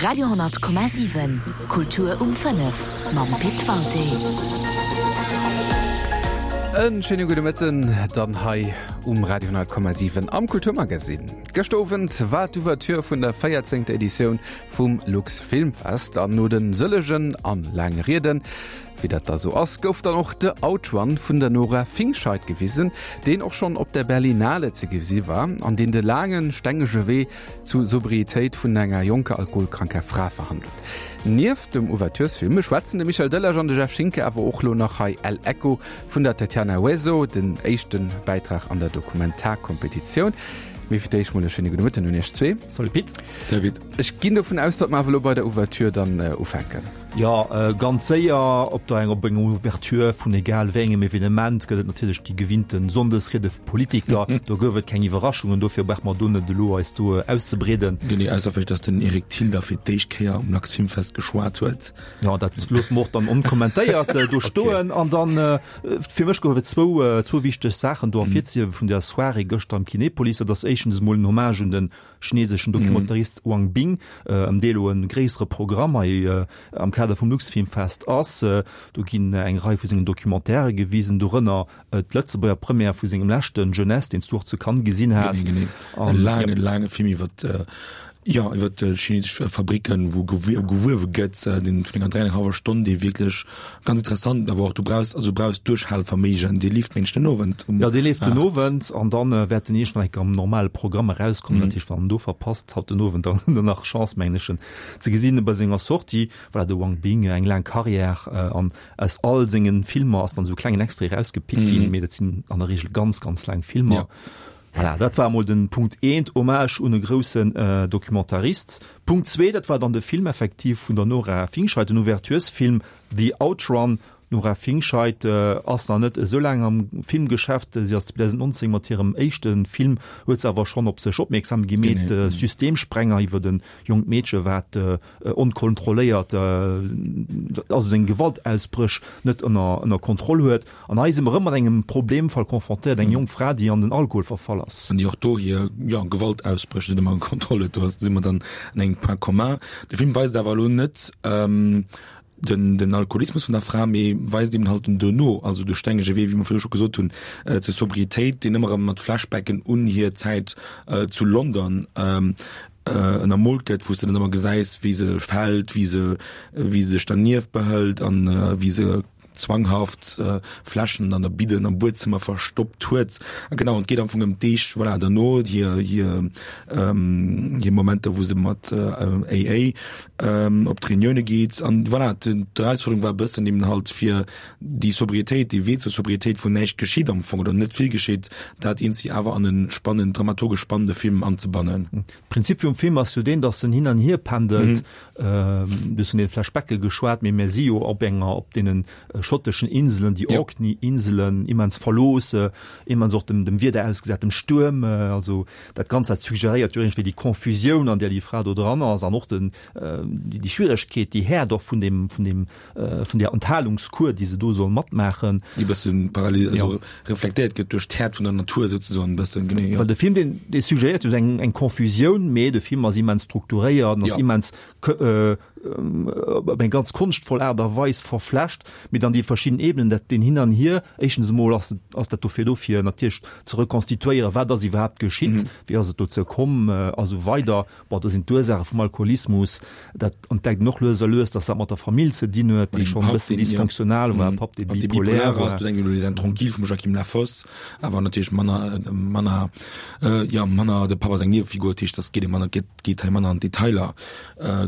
Radio,7 Kultur um 5 mam Pit Walté. En schéine gudde Mëtten dann hei um Radio 10,7 am Kulturmagazin. Gëschter Owend war d'Ouverture vun der 14. Editioun vum Lux Filmfest an no den sëllegen an laange Rieden, Wéi dat da sou ass, gouf dann och The Outrun vun der Nora Fingscheidt gewisen, deen och schonn op der Berlinale ze gesi war an deen de laangen, stengege Wee zu Sobrietéit vun enger jonker alkoholkranker Fra verhandelt. Nieft dem Ouverturesfilm schwätzen de Michel Delage an de Jeff Schinker awer och lo nach hei El Echo vun der Tatiana Hueso, den éischte Bäitrag an der Dokumentarkompetitioun. Mee fir d'éischt mol e schéine gudde Mëtten un iech zwee. Salut Pit. Salut Pit. Ech ginn dovun aus, datt mer awer elo bei der Ouverture dann ufänken. Jo, ganz séier. Op der op enger Ouverture vun egal wéi engem Evenement gëtt et natierlech déi gewinnte Sonndesriede vu Politiker. Do gouf et keng Iwwerraschungen, dofir brauche mer do net elo eis do auszebreeden. Genee, ausser vläicht, datt den Eric Thill da fir d'éischt Kéier um Luxfilmfest geschwat huet. Jo, dat loosse mer och dann onkommentéiert do stoen. An dann, fir mech gouf et zwou, zwou wichteg Saachen do ervirzehiewe vun der Soirée gëschter am Kinepolis. Dat ass éischtens emol en Hommage un den chineseschen Dokumentarist Wang Bing, ëm dee elo e gréissere Programm hei am Kader vum Luxfilmfest ass. Do ginn eng Rei vu sengen Documentairë gewisen, dorënner d'Lëtzebuerger Première vu sengem leschten Jeunesse, deen s du och zu Cannes gesinn has. Genee, genee. E laange, laange Film iwwer, jo, iwwer chinesesch Fabricken, wou gewuewe gëtt, deen vun enger 3 an eng hallwer Stonn, dee wierklech Ganz interessant, awer och du brauchs, also du brauchs Duerchhaleverméigen. Dee leeft mengen ech den Owend um 8. Jo, dee leeft den Owend an dann wäert en eescht nach eng Kéier am normale Programm erauskommen. Dat heescht, wann en do verpasst, haut den Owend dann huet en nach Chance, mengen ech, en ze gesinn bei senger Sortie. Voilà, de Wang Bing, eng laang Carrière an aus all sengen Filmer ass dann esou e klengen Extrait erausgepickt ginn, mee dat sinn an der Reegel ganz, ganz laang Filmer. Voilà, dat war emol den Punkt eent, Hommage un e groussen Documentarist. Punkt zwee, dat war dann de Film effektiv vun der Nora Fingscheidt, den Ouverturesfilm The Outrun. D'Nora Fingscheidt ass nach net esou laang am Filmgeschäft, si ass 2019 mat hirem éischte Film, huet se awer schonn op sech opmierksam gemeet, Systemsprenger, iwwer e jonkt Meedche wat onkontrolléiert, also seng Gewaltausbréch net ënner Kontroll huet. An hei si mer erëm mat engem Problemfall confrontéiert, eng jonk Fra, déi an den Alkohol verfall ass. An déi och do hir, jo, Gewaltausbréch net ëmmer ënner Kontroll huet. Do si mer dann an engem Point commun. De Film weist awer elo net den, den Alkoholismus vun der Fra, mee weist eben halt den Duerno, also de stengege Wee, wéi mer virdru scho gesot hunn, zur Sobriétéit, deen ëmmer erëm mat Flashbacken un hir Zäit zu London ënnermoolt gëtt, wou s de dann ëmmer gesäis, wéi se fält, wéi se, wéi se sech dernieft behëlt an wéi se zwanghaft Fläschen an der Bidden am Buedzëmmer verstoppt huet. A genau, et geet am Fong ëm d'Deeg, voilà, derno, hir, hir, hir Momenter, wou se mat AA op d'Reunioune geet. An voilà, d'Erausfuerderung war e bëssen eben halt fir déi Sobriétéit, dee Wee zur Sobriétéit, wou näischt geschitt am Fong oder net vill geschitt, dat eenzi awer an e spannend, dramaturgesch spannende Film anzebannen. D'Prinzip vum Film ass jo deen, datt en hin an hier pendelt. Du hues vun den Flashbacke geschwat, mee mir si jo op enger, op deenen schotteschen Inselen, déi Orkney-Inselen, immens verlooss, immens och dem, dem Wieder ausgesat, dem Stuerm. Also dat Ganzt, dat suggeréiert jo iergendwéi déi Confusioun, an där déi Fra do dran ass an och den, déi Schwieregkeet, déi Häert och vun deem, vun deem, vun där Enthalungskur, déi se do soll matmaachen. Déi e bëssen parallel, also reflektéiert gëtt duerch d'Häert vun der Natur souzesoen e bëssen, genee, jo. Well de Film, deen, dee suggeréiert jo eng, eng Confusioun, mee de Film ass immens strukturéiert an ass immens op eng ganz konschtvoll Aart a Weis verflecht, mee dann déi verschidden Ebenen, dat deen Hin an Hier, éischtens emol ass, ass dat dofir do, fir natierlech ze rekonstituéieren, wat ass iwwerhaapt geschitt, wéi ass et dozou komm a sou weider. Bon, do sinn d'Ursaache vum Alkoholismus, dat entdeckt en och lues a lues, dass dat mat der Famill ze dinn huet, déi schonn e bëssen dysfonctional war, Papp, dee bipolär war. Tranquille vum Joachim Lafosse, awer natierlech manner, manner, jo, manner, de Papp ass eng Niewefigur, dat heescht, dat geet manner, geet hei manner an d'Detailer.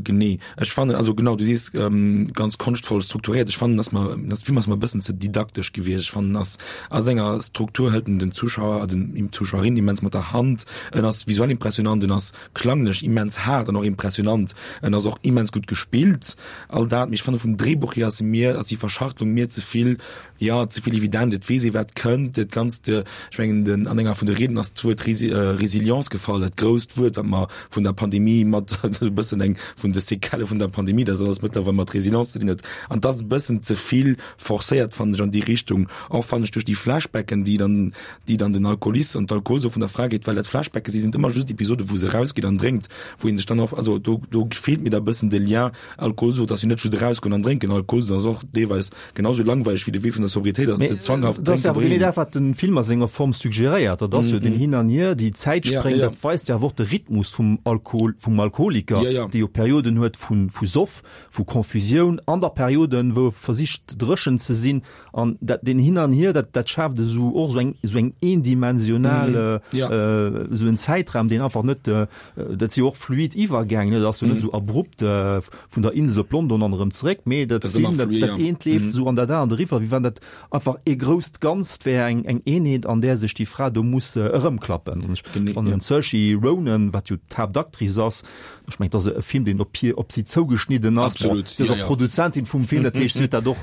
Genee, ech fannen, also genau, du sees, ganz konschtvoll strukturéiert. Ech fannen, dass mer, dass de Film ass mer e bëssen ze didaktesch gewiescht. Ech fannen, ass a senger Struktur hëlt en den Zuschauer, den Zuschauerin immens mat der Hand. En ass visuell impressionant, en ass klanglech immens haart an och impressionant, en ass och immens gutt gespillt, all dat, mee ech fanne vum Drehbuch hier ass e mir, ass déi Verschachtelung mir ze vill, jo, ze vill evident, et weess ee wat kënnt, dat Ganzt, ech mengen den, an enger vun de Rieden ass d'Wuert Resilience gefall, dat grousst Wuert wat mer vun der Pandemie mat, e bëssen eng vun de Séquellë vun der Pandemie, dat alles mëttlerweil mat Resilience ze dinn huet, an et ass e bëssen ze vill. forcéiert, fannen ech, an déi Richtung. Och fannen ech duerch déi Flashbacken, déi dann, déi dann den Alkoholis an d'Alkoholsucht vun der Fra geet, well dat Flashbacke si sinn ëmmer just Episode wou se erausgeet an drénkt, wou een sech dann och, also do, do feelt mir da bëssen de Lien. Alkoholsucht ass jo net just erausgoen an drénken, Alkoholsucht ass och deelweis genau sou langweileg wéi de Wee vun der Sobriétéit ass, de zwanghaft Drénken. Dat ass awer genee dat, wat de Film a senger Form suggeréiert. Dat ass jo den Hin an Hier, déi Zäitspréng, dat weist jo awer och de Rhythmus vum Alkohol, vum Alkoholiker, dee jo Perioden huet vu vu Soff, vu Confusioun an da Perioden, wou e versicht dréchen ze sinn. An dat, deen Hin an Hier, dat, dat schaaft esou och esou eng, esou eng eendimensional, esou en Zäitraum, deen einfach net, dat si jo och fluid Iwwergäng, ne, dat ass jo net esou abrupt vun der Insel op London an erëm zeréck, mee dat sinn, dat, dat eent leeft esou an dat anert eriwwer, wéi wann dat einfach ee grousst Ganzt wär, eng, eng Eenheet, an där sech déi Fra do muss erëmklappen. An ech fannen, d'Saoirse Ronan, wat jo d'Haaptactrice ass, ech mengen, et ass e Film, deen op hir, op si zougeschnidden ass. Bon, Absolut, si ass ja, och ja. Produzentin vum Film, dat heescht, si huet dat och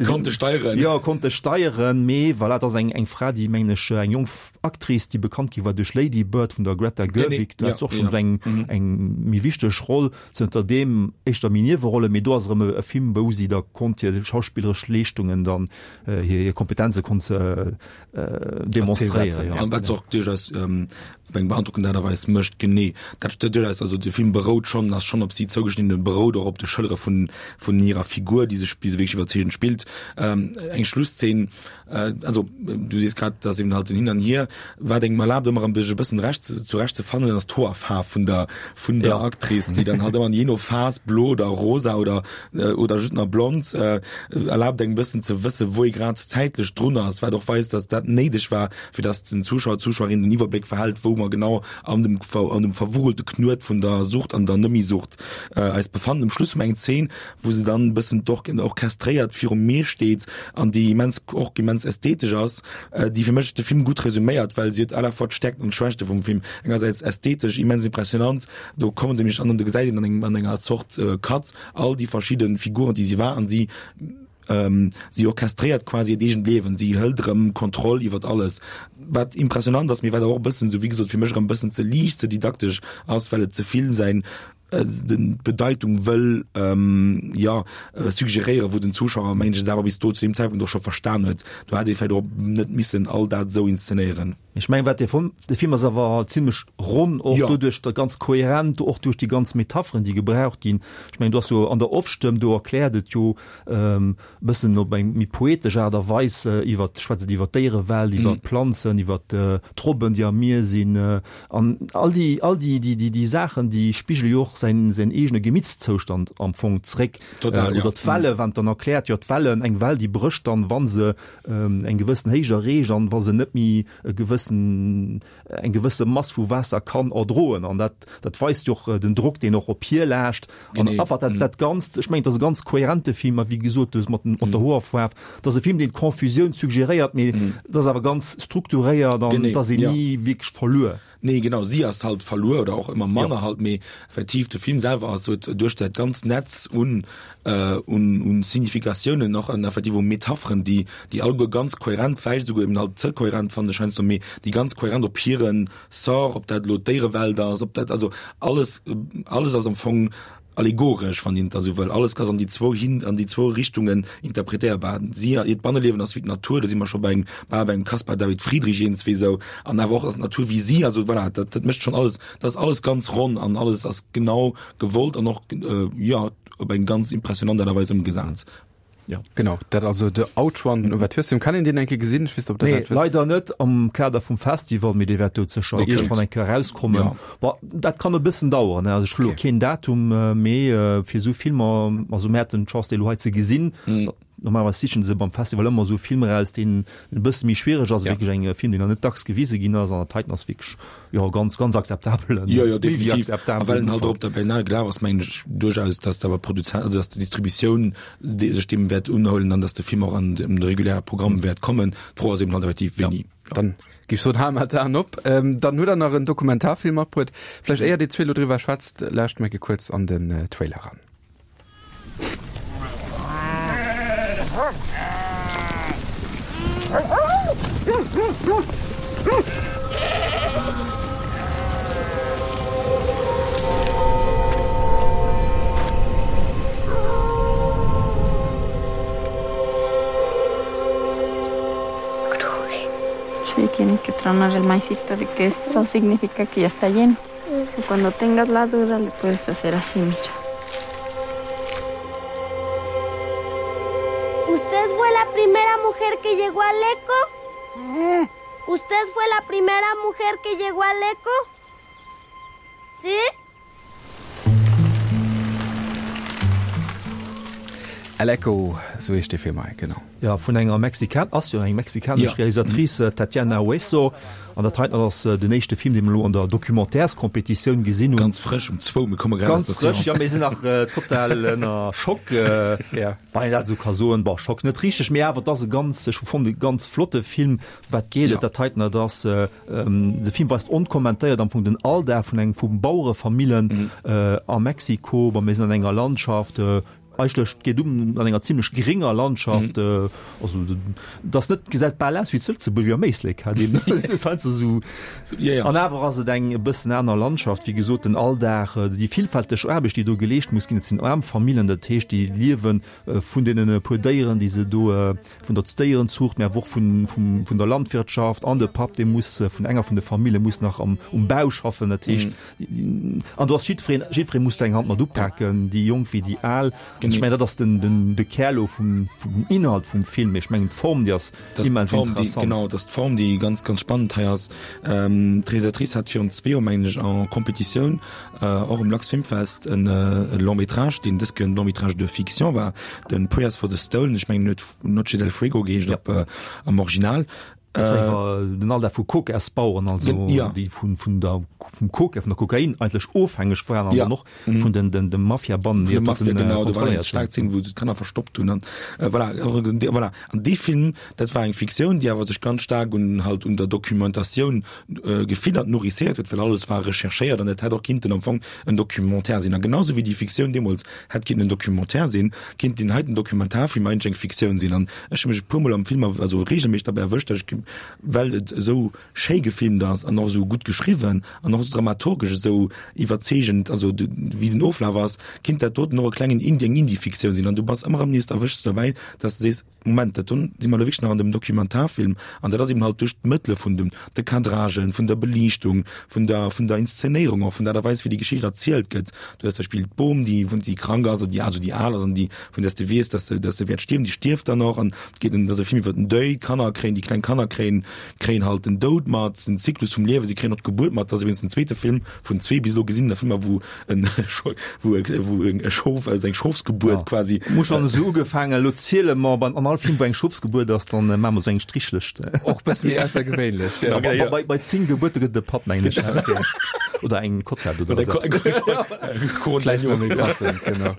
Konnte steieren. Jo, konnte steieren, mee voilà, et ass eng, eng Fra, déi, mengen ech, eng jonk Actrice, déi bekannt gi war duerch Lady Bird vun der Greta Gerwig, do hat se och schonn eng, eng méi wichteg Roll, zënter deem éischter méi Niewerollen, mee do ass erëm e Film, wou si da konnt hir schauspilleresch Leeschtungen dann, hir, hir Kompetenze konnt se demonstréieren. An wat se och duerchaus op eng beandrockend Aart a Weis mécht, genee dat duerchaus, also de Film berout schonn, ass schonn op si zougeschnidden, berout och op de Schëllere vun, vun hirer Figur, déi sech, déi se wierklech iwwerzeegend spillt. Eng Schlusszeen, also du sees grad, dass eben halt den Hin an Hier, wat engem erlaabt ëmmer erëm sech e bëssen recht zurecht ze fannen, ass d'Hoerfaarf vun der, vun der Actrice, déi dann halt ëmmer jee no Phas blo oder rosa oder, oder just nach blond, erlaabt engem e bëssen ze wësse wou ee grad zäitlech drun ass, wat och weist, dass dat néideg war, fir dass den Zuschauer, d'Zuschauerin den Iwwerbléck verhält, wou mer genau an dem, an dem verwurelte Knuet vun der Sucht an der Nëmmi-Sucht eis befannen. Um Schluss hu mer eng Zeen, wou se dann e bëssen orchestréiert virum Mier steet an déi immens, och immens ästhetesch ass, déi fir mech de Film gutt resuméiert, well si huet à la fois d'Stäerkten an d'Schwächte vum Film. Engersäits ästhetesch immens impressionant, do kommen nämlech an do gesäit een an engem, an enger Zort Cut all déi verschidde Figuren, déi si war an si si orchestréiert quasi hiert eegent Liewen, si hëlt erëm Kontroll iwwert alles, wat impressionant ass, mee wat awer och e bëssen, sou wéi gesot, fir mech erëm e bëssen ze liicht, ze didaktesch ass, well et ze vill säin d'Bedeitung wëll jo suggeréieren, wou den Zuschauer mengen ech et awer bis do zu deem Zäitpunkt och scho verstan huet. Do hätt ee vläicht och net missen all dat esou inszenéieren. Ech mengen wat dee Film, de Film ass awer zimlech ronn, och doduerch da ganz kohärent, och duerch déi ganz Metapheren déi gebraucht ginn. Ech mengen do ass jo an der Off-Stëmm, do erkläert et jo bëssen op eng méi poetesch Aart a Weis iwwer, schwätzt et iwwer d'Déierewelt, iwwer d'Planzen, iwwer d'Robben, déi am Mier sinn. An all déi, all déi, déi, déi, déi Saachen, déi spigele jo och säin, säin eegene Gemittszoustand am Fong zréck. Total, ja. Oder d'Welle, wann dann erkläert, jo d'Wellen, eng Well, déi brécht dann, wa se eng gewëssen Héicht erreecht an wa se net méi e gewëssen, eng gewësse Mass vu Waasser kann erdroen. An dat, dat weist jo och den Drock, deen och op hir laascht. An einfach dat, dat Ganzt, ech mengen, et ass e ganz kohärente Film, a wéi gesot, du mat, mat der Hoerfaarf, et ass e Film, deen d'Confusioun suggeréiert, mee et ass awer ganz strukturéiert an et ass een ni wierklech verluer. Nee, genau, si ass halt verluer oder och ëmmer manner halt, mee effektiv de Film selwer ass, huet duerch dat ganzt Netz un, un, un Significatiounen och an effektiv u Metapheren, déi, déi alleguer ganz kohärent, vläicht esouguer eben halt ze kohärent fannen ech heiansdo, mee déi ganz kohärent op hiren Sort, ob dat elo d'Déierewelt ass, ob dat, also alles, alles ass am Fong allegoresch, wann een et da sou wëll. Alles ass an déi zwou hin, an déi zwou Richtungen interpretéierbar. Si, hiert Banneliewen ass wéi d'Natur, do si mer scho bei engem, bal bei engem Caspar David Friedrich eenzwee sou, an awer och ass d'Natur wéi si, also voilà, dat, dat mécht schonn alles, dat ass alles ganz ronn an alles ass genau gewollt an och, jo, op eng ganz impressionant Aart a Weis ëmgesat. Ja. Genau, dat also de Outrun, den Ouverturesfilm. Kann een deen eng Kéier gesinn? Ech weess net, ob der Nee, dat wësst. leider net am Kader vum Festival, mee dee wäert do sécher Okay. iergendwann eng Kéier erauskommen. Ja. Bon, dat kann e bëssen daueren, ne? Also ech hu lo Okay. keen Datum, mee fir esou Filmer, also mir haten d'Chance, déi elo hei ze gesinn. Mhm. Normalerweis sichen se beim Festival ëmmer esou Filmer eraus, deen e bësse méi schwiereg ass, Ja. wierklech eng Film, deen nach net dacks gewise ginn ass. An dat heiten ass wierklech, jo, ganz, ganz akzeptabelen, Jo, jo, méi wéi definitiv. A akzeptabelen well en halt och Ufank. op der Berlinale gelaf ass, mengen ech duerchaus, dass awer d'Produzent, also dass d'Distributioun déi sech deem wäert unhuelen an dass de Film och an de reguläre Programm wäert kommen. D'Fro ass eben halt effektiv wéini. Ja, dann géif ech soen, hale mer d'Aen op. Dann hutt Der nach en Dokumentarfilm matbruet. Vläicht éier Dir zwee elo driwwer schwätzt, lauscht mer eng Kéier kuerz an den Trailer eran. tronar el maicito de que eso significa que ya está lleno. Y cuando tengas la duda le puedes hacer así, mira. ¿Usted fue la primera mujer que llegó al eco? ¿Usted fue la primera mujer que llegó al eco? ¿Sí? El Eco, sou heescht dee Film hei, genau. Jo, vun enger Mexikan, ass jo eng mexikanesch Realisatrice, d'Tatiana Hueso. An dat heiten ass den éischte Film, dee mer elo an der Documentaires-Competitioun gesinn hunn. Ganz frësch um zwou, mir komme grad aus der Seance. Ganz frësch, jo, mir sinn nach total ënner Schock, wann een dat esou ka soen. Bon, Schock net richteg, mee awer et ass e ganz, ech hu fonnt, e ganz flotte Film. Wat geet et? Dat heiten, dat ass, de Film weist onkommentéiert am Fong den Alldag vun engem, vu Bauerefamillen a Mexiko. Bon, mir sinn an enger Landschaft, Eigentlech geet um an enger zimlech grénger Landschaft, also et ass net, gesäit bal aus wéi zu Lëtzebuerg, wéi am Éislek, hat een heiansdo esou. An awer ass et eng e bëssen aner Landschaft, wéi gesot, den Alldag, déi villfälteg Aarbecht, déi do geleescht muss ginn. Et sinn aarm Famillen, dat heescht, déi liewe vun deenen puer Déieren, déi se do, vun der Déierenzuucht, mä awer och vun, vum, vun der Landwirtschaft. An de Papp, dee muss vun enger vun de Famille muss nach am, um Bau schaffen, dat heescht, An do ass jiddwereen, jiddweree muss do eng Hand mat upaken, déi Jonk wéi déi Al. An ech mengen, dat ass den, den, de Kär elo vum, vum Inhalt vum Film. Mee ech mengen, d'Form, déi ass immens interessant. Genau, dat ass d'Form, déi ganz, ganz spannend hei ass. D'Realisatrice hat virun zwee Joer, mengen ech, en Competitioun, och um Luxfilmfest, en Long métrage, deen dës Kéier en Long métrage de fiction war, de Prayers for the Stolen. Ech mengen, en huet Noche del Fuego geheescht op, am Original. Dat war iwwer den Alldag vu Kokasbaueren, also ja. déi vun, vun der, vum Koka, vun der Kokain eigentlech ofhängeg waren an ja. dann och mhm. vun den, den, de Mafiabannen, déi Mafia, den, genau, do war eng stark Szene, wou se d'Kanner verstoppt hunn an äh, voilà, voilà. An dee Film, dat war eng Fiktioun, déi awer sech ganz stark un halt un der Dokumentatioun äh, gefiddert, nourrisséiert huet, well alles war recherchéiert an dat hätt och kinnten am Fong en Documentaire sinn. A genauso wéi déi Fiktioun deemools hätt kinnten en Documentaire sinn, kinnt deen heiten Dokumentarfilm eigentlech eng Fiktioun sinn. An Ech hu mech e puer mol am Film, also regelméisseg derbäi erwëscht, datt ech, well et esou schéi gefilmt ass an och esou gutt geschriwwen an och dramaturgesch esou iwwerzeegend, also wéi den Oflaf ass, kinnt dat doten och e klengen Indie, eng Indie-Fiktioun sinn. An du bass ëmmer erëm nees, erwëschs de derbäi, datt s de sees, Moment, dat do si mer elo wierklech nach an dem Dokumentarfilm. An dat ass eben halt duerch d'Mëttele vun dem, de Cadragen, vun der Beliichtung, vun der, vun der Inszenéierung och, vun der Aart a Weis, wéi déi Geschicht erzielt gëtt. Du hues zum Beispill d'Bom, déi, déi krank ass, oder déi, also déi al ass an déi vun där s de weess, dass se, dass se wäert stierwen, déi stierft dann och an et geet en, dat ass e Film iwwer den Deuil, d'Kanner kréien, déi kleng Kanner kréien, kréien halt den Doud mat, den Zyklus vum Liewen, si kréien och d'Gebuert mat. Dat ass iwwregens den zweete Film vun zwee bis elo gesinne Filmer, wou en, wou e, wou e Schof, also eng Schofsgebuert quasi. Mir hu schonn esou ugefaangen, elo ziele mer beim, an all Film, wou eng Schofsgebuert ass, dann maache mer esou eng Strichlëscht. Och e bësse méi aussergewéinlech, jo. Bei, bei, bei 10 Gebuerte gëtt et e Patt, mengen ech. Oder eng Kotlett oder esou eppes. Vläicht nach méi passend, genau.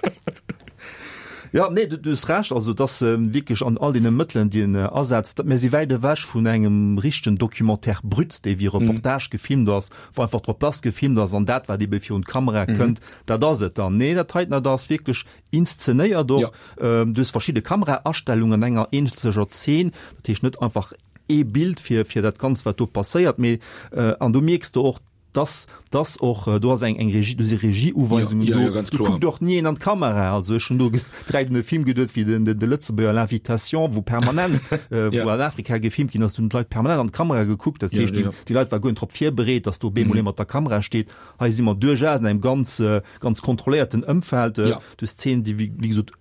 Ja, nee, du, du hues Recht, also dass ähm, wierklech an all deene Mëttelen, déi en äh, asetzt, mir si wäit ewech vun engem richtegen Documentaire brut, dee wéi Reportage mm. gefilmt ass, wou einfach drop lass gefilmt ass an dat, wat ebe virun d'Kamera mm. kënnt, dat ass et dann. Nee, dat heiten, dat ass wierklech inszenéiert och. Ja. Ähm, du hues verschidde Kameraastellungen an enger eenzeger Zeen, dat heescht net einfach ee Bild fir, fir dat Ganzt, wat do passéiert, mee äh, an du mierks do och, dass dass och do ass eng eng Regie, do si Regieuweisungen do, ja, do kuckt och ni een an d'Kamera. Also ech hunn do direkt un e Film geduet wéi den de Lëtzebuerger L'Invitation, wou permanent wou an Afrika gefilmt ginn ass, do hunn d'Leit permanent an d'Kamera gekuckt. Dat heescht, déi déi Leit war guer net drop virbereet, dass do op eemol ee mat der Kamera steet. Hei si mer duerchaus an engem ganz ganz kontrolléierten Ëmfeld. Du hues Szenen, déi wéi gesot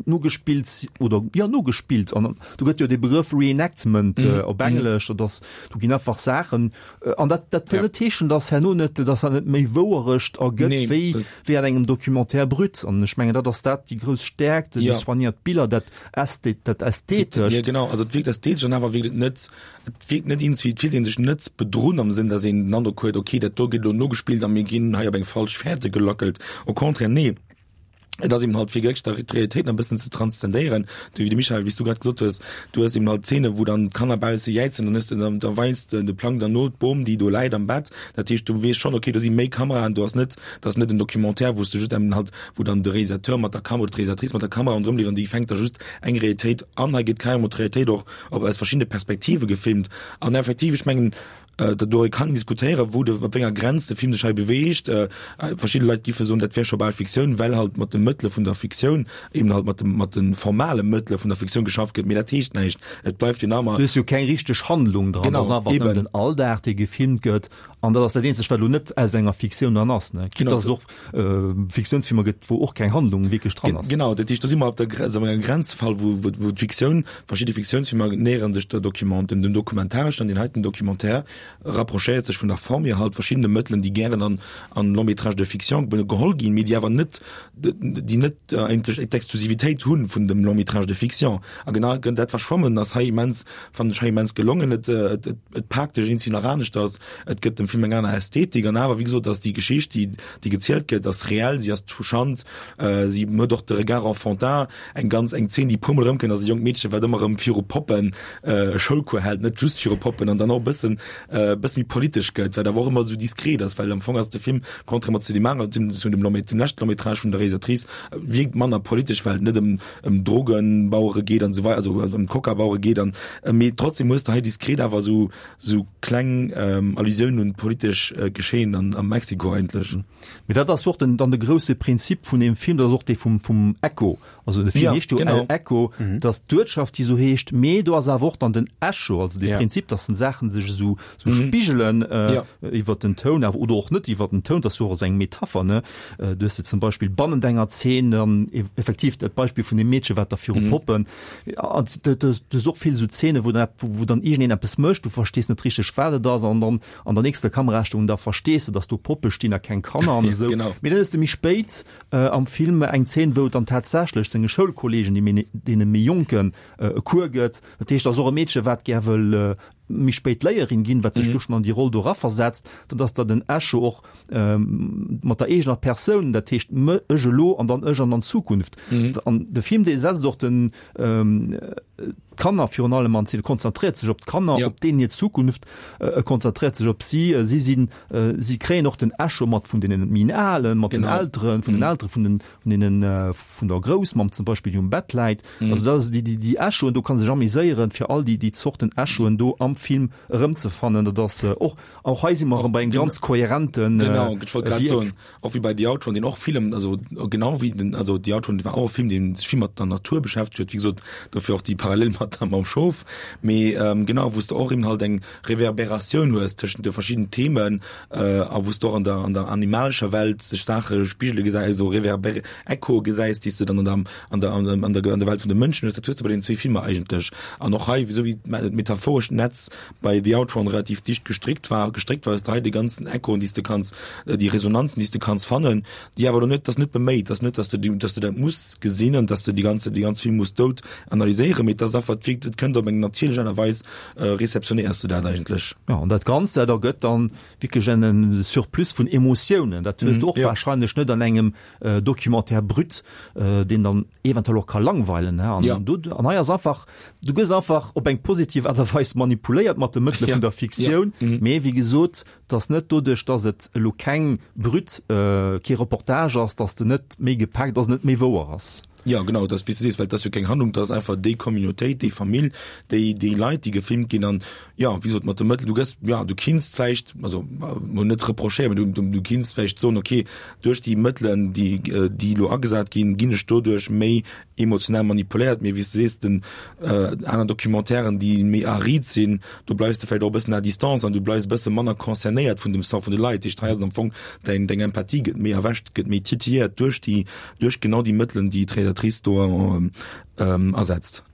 nogespillt oder ja nogespillt an do gëtt jo de Begrëff Reenactment mm. äh, op mhm. Englesch mm. dass du ginn einfach Saachen äh, an dat dat ja. net heeschen dass herno net dass er net méi Wouerecht ergëtt nee, wéi wéi an engem Documentaire brut an ech mengen dat ass dat déi grouss Stärkt ja. déi soignéiert Biller dat ästhet dat ästhetesch ja, genau also et wierkt ästhetesch an awer wierkt et net et wierkt net ins et fillt een sech net bedrunn am Sënn dass een den Androck huet okay dat do gëtt elo nogespillt a mir ginn hei op eng falsch Fährte gelackelt au contraire nee Et ass eben halt fir wierklech der d'Realitéit nach e bëssen ze transzendéieren. Du, wéi de Michael, wéi s du grad gesot hues, du hues eben halt Zeene wou dann d'Kanner bausse jäizen, dann hues de, da weist de Plang dann no d'Bom, déi do läit am Bett. Dat heescht, du weess schonn, okay, do si méi Kameraen, do ass net, dat ass net en Documentaire, wou s de just eben halt, wou dann de Réalisateur mat der Kamera oder d'Réalisatrice mat der Kamera ronderëm leeft an déi fänkt da just eng Realitéit an. Hei gëtt carrément d'Realitéit och op aus verschiddene Perspektive gefilmt an effektiv, ech mengen, Doriwwer kann een diskutéieren, wou de, op wéi enger Grenz de Film sech hei beweegt. Verschidde Leit giffe soen, dat wär scho bal Fiktioun, well halt mat de. Mëttele vun der Fiktioun, eben halt mat dem, mat de formale Mëttele vun der Fiktioun geschafft gëtt, mee dat heescht näischt, et bleift jo nach ëmmer. Du hues jo keng richteg Handlung dran, et ass einfach nëmmen den Alldag, dee gefilmt gëtt an dat ass dat eenzegt, wat elo net aus enger Fiktioun dann ass, ne? Quitte dass et och Fiktiounsfilmer gëtt, wou och keng Handlung wierklech dran ass. Genau, dat heescht, do si mer op der Grenz, op engem Grenzfall, wou, wou, wou d'Fiktioun, verschidde Fiktiounsfilmer näheren sech der Document, dem, dem Dokumentarischen an deen heiten Documentaire rapprochéiert sech vun der Form hier halt verschiddene Mëttelen, déi gären an, an Long métrage de fiction geholl ginn, mee déi awer net, déi net eigentlech d'Exklusivitéit hu vun dem Long métrage de fiction. A genau dat Verschwammen ass hei immens, fannen ech hei immens gelongen. Et, et, et paakt dech eenzel nach aneschters, et gëtt dem Film eng aner Ästhetik an awer, wéi gesot, ass déi Geschicht, déi, déi gezielt gëtt, ass reell, si ass touchant, si huet och de Regard enfantin, eng ganz, eng Zeen, déi e puermol erëmkënnt, ass e jonkt Meedche, wat ëmmer erëm viru Poppen e Schoulcours hält, net just viru Poppen, an dann och e bëssen, e bësse méi politesch gëtt, wat awer och ëmmer esou diskret ass, well am Fong ass de Film, contrairement zu deem aneren, zu dem Long, dem leschte Long-métrage vun der Realisatrice, wierkt manner politesch, well et net ëm, ëm Drogenbauere geet an esou weider, also ëm Coca-Bauere geet an, mee trotzdem hues de hei diskret awer esou, esou kleng Allusiounen un d'politesch Geschehen an, a Mexiko eigentlech. Mee dat ass jo och den, dann de grousse Prinzip vun deem Film, dat ass och dee vum, vum Echo. Also de Film heescht jo El Echo, dat ass d'Uertschaft, déi esou heescht, mee do ass awer och dann den Echo, also de Prinzip, dass den Saachen sech esou, esou spigelen iwwert den Toun awer oder och net iwwert den Toun, dat ass jo och esou eng Metapher, ne? Du hues de zum Beispill bannent enger Zeen dann effektiv dat Beispill vun deem Meedche, wat da viru Poppen, an du hues och vill esou Zeene wou dann, wou dann iergendeen eppes mécht, du verstees net richteg wat et ass an dann an der nächster Kamerastellung da verstees de, dass do Poppe stinn a keng Kanner an esou. Mee dann hues de méi spéit am Film eng Zeen, wou et dann tatsächlech senge Schoulkolleegen, déi méi, deene méi Jonken e Cours gëtt. Dat heescht, ass och e Meedche wat gär wëll méi spéit Léierin ginn, wat sech do schonn an déi Roll do eraversetzt, dann dass da den Echo och mat der eegener Persoun, dat heescht ech elo an dann ech an an Zukunft. An de Film dee setzt och den d'Kanner virun allem an Zeen, konzentréiert sech op d'Kanner, op deenen hir Zukunft, e konzentréiert sech op si, si sinn, si kréien och den Echo mat vun deenen méi Alen, mat den Elteren, vun den Eltere vun den, vun deenen, vun der Groussmamm zum Beispill, déi um Bett läit. Also dat ass déi, déi, déi Echoen, do kann sech ameséieren, fir all déi, déi Zorten Echoen do am Film erëmzefannen. Dat ass och, och hei si mer erëm bei engem ganz kohärenten Genau, ech wollt grad soen, och wéi bei The Outrun, deen och vill ëm, also genau wéi den, also The Outrun war och e Film, dee sech vill mat der Natur beschäftegt huet, wéi gesot, dofir och déi Parallel mat der, mam Schof, mee genau, wou s de och eben halt eng Reverberatioun hues tëschent de verschidden Themen a wou s de och an der, an der animalescher Welt sech Saache spigele gesäis, also Reverber, Echoe gesäis, déi s de dann an der, an der, an der, an der Welt vun de Mënschen hues. Dat hues de bei den zwee Filmer eigentlech. An och hei, esou wéi d'metaphorescht Netz bei The Outrun relativ dicht gestrickt war, gestréckt war, hues de hei déi ganzen Echoen, déi s de kanns, déi Resonanzen, déi s de kanns fannen, déi awer elo net, dat ass net beméit, dat ass net, dass de, dass de dat muss gesinn an dass de déi ganze, déi ganz Film muss dout analyséieren, mee et ass einfach, et wierkt, et kënnt op eng natierlech Aart a Weis, réceptionnéiers de dat eigentlech. Jo, an dat Ganzt, dat ergëtt dann wierklech en Surplus vun Emotiounen. Dat hues de och wahrscheinlech net an engem Documentaire brut, deen dann eventuell och ka langweilen. An do, an hei ass einfach, du gëss einfach op eng positiv Aart a Weis manipuléiert mat de Mëttele vun der Fiktioun, mee wéi gesot, 't ass net doduerch, dass et elo keng brut, kee Reportage ass, dass de net méi gepaakt, dass et net méi wouer ass. Jo, genau, dass, wéi s de sees, well et ass jo keng Handlung, et ass einfach déi Communautéit, déi Famill, déi, déi Leit, déi gefilmt ginn an, jo, wéi gesot, mat de Mëttel, du gëss, jo, du kinns vläicht, also mol net reprochéieren, mä du, du, du kinns vläicht soen, okay, duerch déi Mëttelen, déi, déi elo agesat ginn, ginn ech doduerch méi emotional manipuléiert, mee wéi s de sees, den aner Documentairen, déi méi arid sinn, do bleifs de vläicht och e bëssen à distance an du bleifs e bësse manner concernéiert vun dem Sort vun de Leit. Dat heescht, hei ass et am Fong, däin, deng Empathie gëtt méi erwächt, gëtt méi titilléiert duerch déi, duerch genau déi Mëttelen, déi d'Realisatrice do asetzt.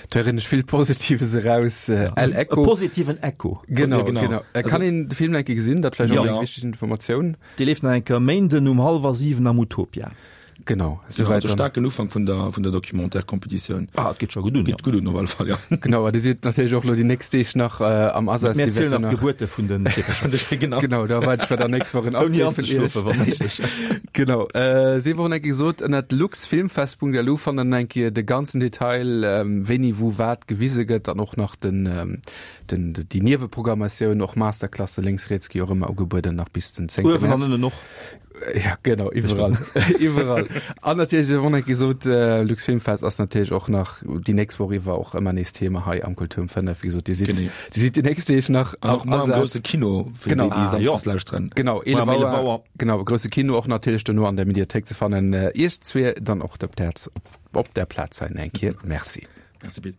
Do héieren ech vill Positives eraus. El Echo. E positiven Echo. Genau, genau. Kann een de Film enke gesinn? Dat vläicht och eng wichteg Informatioun. Dee leeft nach eng Kéier e Méinden um hallwer 7 am Utopia. Genau, souwäit. Also staarken Ufank vun der, vun der Documentaire-Competitioun. Ah, et geet scho gutt un, jo. Geet gutt un, op alle Fall, jo. Genau, a Dir sidd natierlech och elo déi nächst Deeg nach am Asaz. Mir zielen nach d'Gebuerte vun den Meefercher. Genau. Genau, da erwaarde ech mer dann nächst Woch en Update vun Iech. Ouni anzeschlofen, wa méiglech. Genau, sief och eng Kéier gesot, ënnert luxfilmfest.lu fannt der dann eng Kéier de ganzen Detail, wéini wou wat gewise gëtt an och nach den, den, déi Nieweprogrammatioun, och Masterclasse lénks, riets gi och ëmmer ugebueden, nach bis den 10. Uewen an ënnen och. Ja genau iwwerall iwwerall. An natierlech won eng gesot äh, Lux Filmfest ass natierlech och nach déi nächst Woch iwwer och ëmmer nees Thema hei am Kultur um 5. Wéi gesot Dir sidd Genee. Dir sidd déi nächst Deeg nach An och am mar am Asaz. grousse Kino fir Genau. déi, déi Ah, samsdes lauschteren. Genau, Mar 11 am 11 Auer. Auer. Genau, grousse Kino och natierlech dono an der Mediathéik ze fannen. Äh, Iech zwee dann och op der op der Plaz sein eng Kéier. Merci. Merci Pit.